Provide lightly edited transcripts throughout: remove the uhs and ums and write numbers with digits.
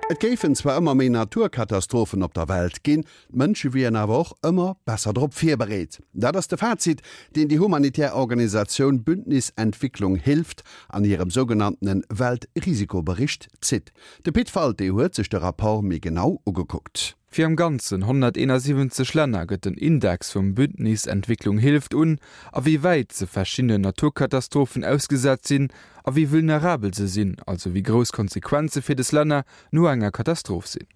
Et géifen zwar ëmmer méi Naturkatastrophen op der Welt ginn, d'Mënsche wieren awer och ëmmer besser drop virbereet. Dat ass de Fazit, deen déi humanitär Organisatioun Bündnis Entwicklung Hilft an hirem sougenanntene Weltrisikobericht zitt. De Pit Walté huet sech de Rapport méi genau ugekuckt. Fir am Ganzen 171 Länner gëtt den Index vum Bündnis Entwicklung hilft un, a wéi wäit se verschiddenen Naturkatastrophen ausgesat sinn a wéi vulnerabel se sinn, also wéi grouss d'Konsequenze fir des Länner no enger Katastroph sinn.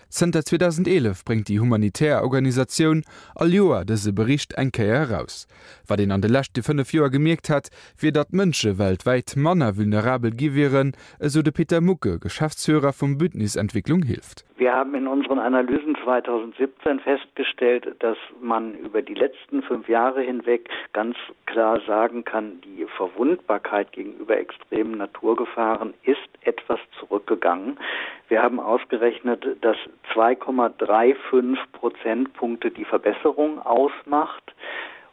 Zënter 2011 bréngt déi humanitär Organisatioun all Joer dëse Bericht eng Kéier eraus. Wat een an de leschte 5 Joer gemierkt hätt, wier datt d'Mënsche weltwäit manner vulnerabel gi wieren, esou de Peter Mucke, Geschäftsführer vum Bündnis Entwicklung hilft. Wir haben in unseren Analysen 2017 festgestellt, dass man über die letzten fünf Jahre hinweg ganz klar sagen kann, die Verwundbarkeit gegenüber extremen Naturgefahren ist etwas zurückgegangen. Wir haben ausgerechnet, dass 2,35 Prozentpunkte die Verbesserung ausmacht.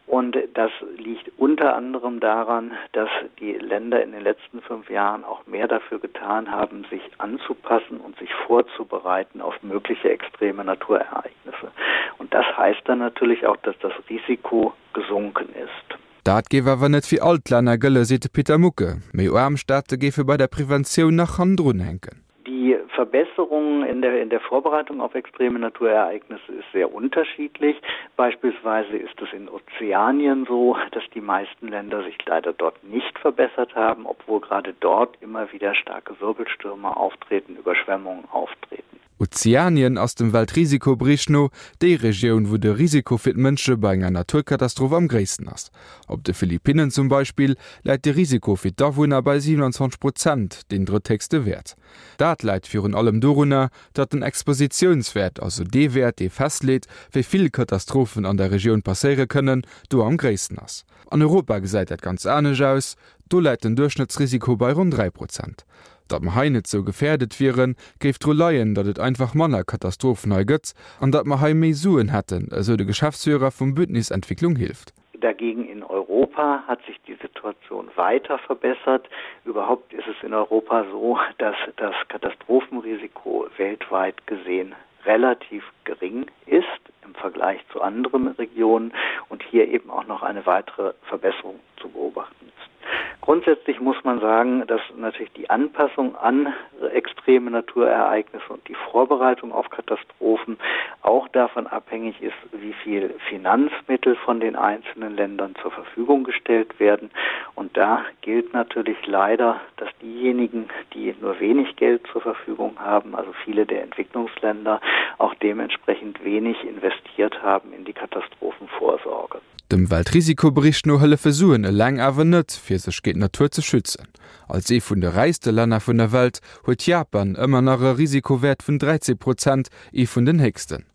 Und das liegt unter anderem daran, dass die Länder in den letzten fünf Jahren auch mehr dafür getan haben, sich anzupassen und sich vorzubereiten auf mögliche extreme Naturereignisse. Und das heißt dann natürlich auch, dass das Risiko gesunken ist. Dat géif awer net fir all d'Länner gëlle, seet de Peter Mucke. Méi aarm Staate géife bei der Preventioun nach hannendrun hänken. Die Verbesserung in der, in der Vorbereitung auf extreme Naturereignisse ist sehr unterschiedlich. Beispielsweise ist es in Ozeanien so, dass die meisten Länder sich leider dort nicht verbessert haben, obwohl gerade dort immer wieder starke Wirbelstürme auftreten, Überschwemmungen auftreten. Ozeanien ass dem Weltrisikobericht no déi Regioun, wou de Risiko fir d'Mënsche bei enger Naturkatastroph am gréissten ass. Op de Philippinnen zum Beispill läit de Risiko fir d'Awunner bei 27 Prozent, deen drëtthéchste Wäert. Dat läit virun allem dorunner, datt den Expositiounswäert, also dee Wäert, dee festleet, wéi vill Katastrophen an der Regioun passéiere kënnen, do am gréissten ass. An Europa gesäit dat ganz anescht aus, do läit den Duerchschnëttsrisiko bei ronn 3 Prozent. Datt mer hei net sou gefäerdet wieren, géif dru leien, datt et einfach manner Katastrophen hei gëtt an datt mer hei méi Suen hätten, esou de Geschäftsführer vum Bündnis Entwicklung hilft. Dagegen in Europa hat sich die Situation weiter verbessert. Überhaupt ist es in Europa so, dass das Katastrophenrisiko weltweit gesehen relativ gering ist im Vergleich zu anderen Regionen und hier eben auch noch eine weitere Verbesserung zu beobachten ist. Grundsätzlich muss man sagen, dass natürlich die Anpassung an extreme Naturereignisse und die Vorbereitung auf Katastrophen auch davon abhängig ist, wie viel Finanzmittel von den einzelnen Ländern zur Verfügung gestellt werden. Und da gilt natürlich leider, dass diejenigen, die nur wenig Geld zur Verfügung haben, also viele der Entwicklungsländer, auch dementsprechend wenig investiert haben in die Katastrophenvorsorge. Dem Weltrisikobericht no hëllefe Suen eleng awer net, fir sech géint d'Natur ze schützen. Als ee vun de räichste Länner vun der Welt huet Japan ëmmer nach e Risikowäert vun 13 Prozent, ee vun den héchsten.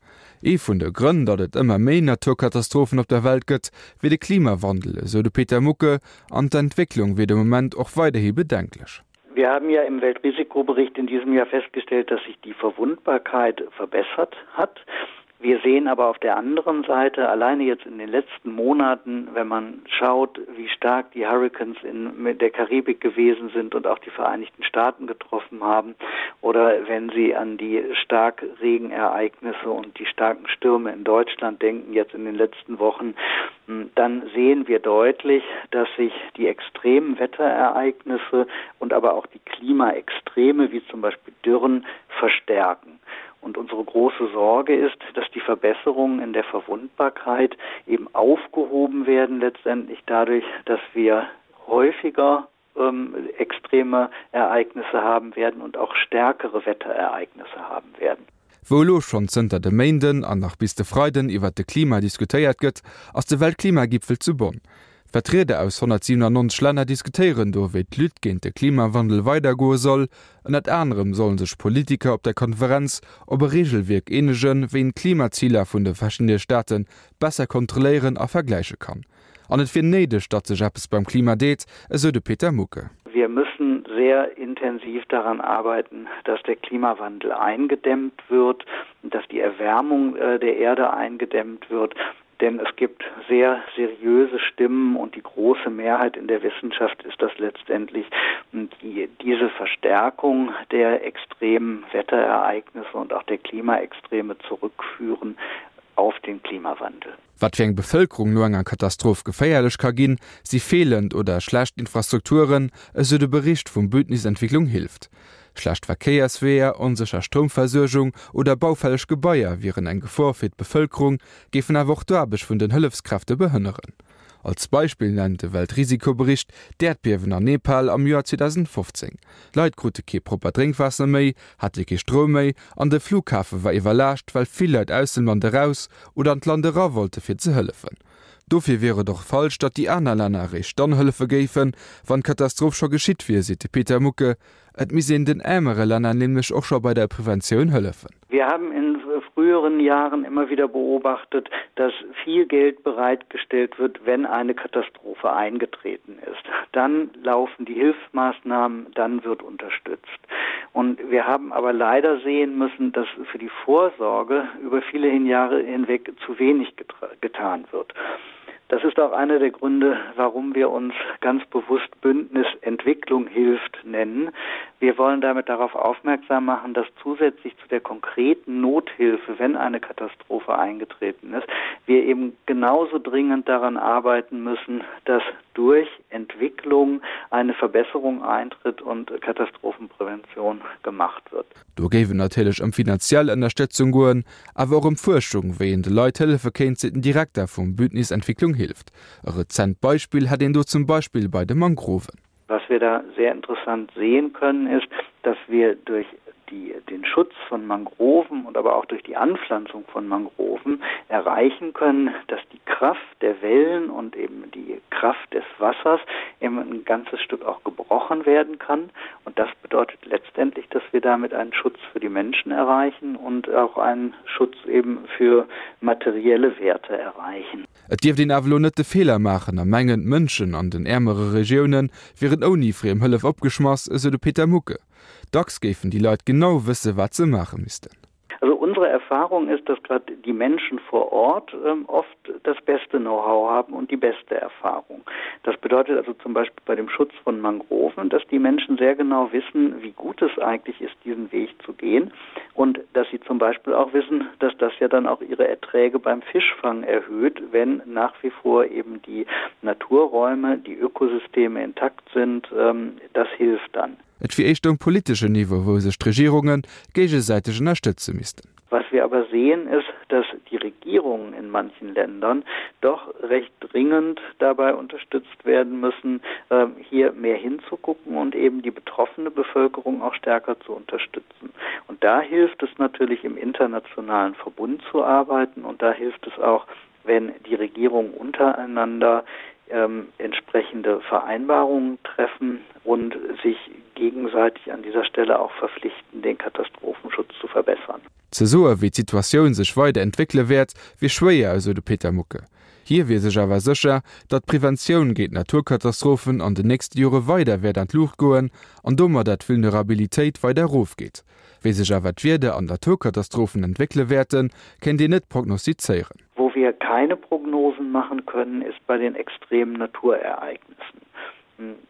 Ee vun de Grënn, datt et ëmmer méi Naturkatastrophen op der Welt gëtt, wier de Klimawandel, esou de Peter Mucke, an d'Entwécklung wier de Moment och weiderhi bedenklech. Wir haben ja im Weltrisikobericht in diesem Jahr festgestellt, dass sich die Verwundbarkeit verbessert hat. Wir sehen aber auf der anderen Seite alleine jetzt in den letzten Monaten, wenn man schaut, wie stark die Hurricanes in der Karibik gewesen sind und auch die Vereinigten Staaten getroffen haben oder wenn Sie an die Starkregenereignisse und die starken Stürme in Deutschland denken jetzt in den letzten Wochen, hm, dann sehen wir deutlich, dass sich die extremen Wetterereignisse und aber auch die Klimaextreme wie zum Beispiel Dürren verstärken. Und unsere große Sorge ist, dass die Verbesserungen in der Verwundbarkeit eben aufgehoben werden letztendlich dadurch, dass wir häufiger ähm, extreme Ereignisse haben werden und auch stärkere Wetterereignisse haben werden. Wou elo schonn zënter de Méinden an nach bis de Freiden iwwert de Klima diskutéiert gëtt, ass de Weltklimagipfel zu Bonn. Vertrieder aus 197 Länner diskutéieren do, wéi d'Lutte géint de Klimawandel weidergoe soll. Ënnert anerem solle sech Politiker op der Konferenz op e Reegelwierk eenegen, wéi een d'Klimaziler vun de verschiddene Staate besser kontrolléieren a vergläiche kann. An et wier néideg, datt sech eppes beim Klima deet, esou de Peter Mucke. Wir müssen sehr intensiv daran arbeiten, dass der Klimawandel eingedämmt wird, dass die Erwärmung äh, der Erde eingedämmt wird. Denn es gibt sehr seriöse Stimmen und die große Mehrheit in der Wissenschaft ist das letztendlich die diese Verstärkung der extremen Wetterereignisse und auch der Klimaextreme zurückführen auf den Klimawandel. Wat fir eng Bevëlkerung no enger Katastroph geféierlech ka ginn, si feelend oder schlecht Infrastrukturen, esou de Bericht vum Bündnis Entwicklung hilft. Schlecht Verkéiersweeër, onsécher Stroumversuergung oder baufälleg Gebaier wieren eng Gefor fir d'Bevëlkerung, géifen awer och d'Aarbecht vun den Hëllefskräfte behënneren. Als Beispill nennt de Weltrisikobericht d'Äerdbiewen an Nepal am Joer 2015. D'Leit krute kee proppert Drénkwaasser méi, hate kee Stroum méi an de Flughafe war iwwerlaascht, well vill Leit aus dem Land eraus oder an d'Land era wollte fir ze hëllefen. Dofir wier et och falsch, datt déi aner Länner eréischt dann hëllefe géifen, wann d'Katastroph scho geschitt wier, seet de Peter Mucke. Et misst een den äermere Länner nämlech och scho bei der Preventioun hëllefen. Wir haben in früheren Jahren immer wieder beobachtet, dass viel Geld bereitgestellt wird, wenn eine Katastrophe eingetreten ist. Dann laufen die Hilfsmaßnahmen, dann wird unterstützt. Und wir haben aber leider sehen müssen, dass für die Vorsorge über viele Jahre hinweg zu wenig getan wird. Das ist auch einer der Gründe, warum wir uns ganz bewusst Bündnis Entwicklung hilft nennen. Wir wollen damit darauf aufmerksam machen, dass zusätzlich zu der konkreten Nothilfe, wenn eine Katastrophe eingetreten ist, wir eben genauso dringend daran arbeiten müssen, dass durch Entwicklung eine Verbesserung eintritt und Katastrophenprävention gemacht wird. Do géif et natierlech ëm finanziell Ënnerstëtzung goen, awer och ëm Fuerschung, wéi een de Leit hëllefe kéint, seet den Direkter vum Bündnis Entwicklung hilft. E rezent Beispill hätt een do zum Beispill bei de Mangroven. Was wir da sehr interessant sehen können, ist, dass wir durch die, den Schutz von Mangroven und aber auch durch die Anpflanzung von Mangroven erreichen können, dass die Kraft der Wellen und eben die Kraft des Wassers eben ein ganzes Stück auch gebrochen werden kann. Und das bedeutet letztendlich, dass wir damit einen Schutz für die Menschen erreichen und auch einen Schutz eben für materielle Werte erreichen. Et dierft een awer elo net de Feeler maachen a mengen, d'Mënschen an den äermere Regioune wieren ouni friem Hëllef opgeschmass, esou de Peter Mucke. Dacks géifen déi Leit genau wësse wat se maache missten. Also unsere Erfahrung ist, dass gerade die Menschen vor Ort ähm, oft das beste Know-how haben und die beste Erfahrung. Das bedeutet also zum Beispiel bei dem Schutz von Mangroven, dass die Menschen sehr genau wissen, wie gut es eigentlich ist, diesen Weg zu gehen und dass sie zum Beispiel auch wissen, dass das ja dann auch ihre Erträge beim Fischfang erhöht, wenn nach wie vor eben die Naturräume, die Ökosysteme intakt sind, ähm, das hilft dann. Et wier éischter um politeschen Niveau, wou sech d'Regierunge géigesäiteg ënnerstëtze missten. Was wir aber sehen, ist, dass die Regierungen in manchen Ländern doch recht dringend dabei unterstützt werden müssen, ähm, hier mehr hinzugucken und eben die betroffene Bevölkerung auch stärker zu unterstützen. Und da hilft es natürlich im internationalen Verbund zu arbeiten und da hilft es auch, wenn die Regierungen untereinander ähm, entsprechende Vereinbarungen treffen und sich gegenseitig an dieser Stelle auch verpflichten, den Katastrophenschutz zu verbessern. Ze soe wéi d'Situatioun sech weider entwéckele wäert, wier schwéier, esou de Peter Mucke. Hie wier sech awer sécher, datt d'Preventioun géint Naturkatastrophen an den nächste Jore weider wäert an d'Luucht goen an domadder d'Vulnerabilitéit weider erofgeet. Wéi sech awer d'Wieder an d'Naturkatastrophen entwéckele wäerten, kéint een net prognostizéieren. Wo wir keine Prognosen machen können, ist bei den extremen Naturereignissen.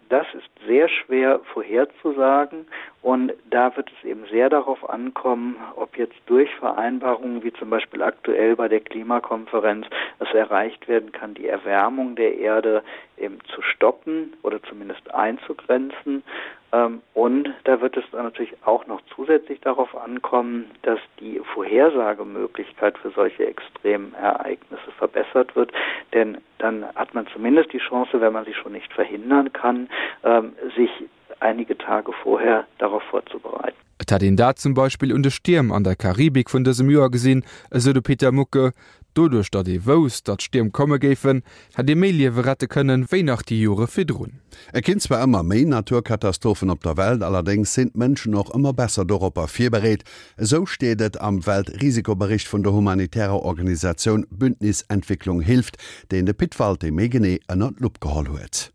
Das ist sehr schwer vorherzusagen und da wird es eben sehr darauf ankommen, ob jetzt durch Vereinbarungen wie zum Beispiel aktuell bei der Klimakonferenz es erreicht werden kann, die Erwärmung der Erde eben zu stoppen oder zumindest einzugrenzen. Ähm, und da wird es dann natürlich auch noch zusätzlich darauf ankommen, dass die Vorhersagemöglichkeit für solche extremen Ereignisse verbessert wird. Denn dann hat man zumindest die Chance, wenn man sie schon nicht verhindern kann, ähm, sich einige Tage vorher darauf vorzubereiten. Et hätt een dat zum Beispill un de Stierm an der Karibik vun dësem Joer gesinn, esou de Peter Mucke. Doduerch, datt ee wousst, datt Stierm komme géifen, hätt ee méi Liewe rette kënnen, wéi nach déi Jore virdrun. Et ginn zwar ëmmer méi Naturkatastrophen op der Welt, allerdéngs sinn d'Mënschen och ëmmer besser doropper virbereet. Esou steet et am Weltrisikobericht vun der humanitärer Organisatioun Bündnis Entwicklung hilft, deen de Pit Walté méi genee ënner d'Lupp geholl huet.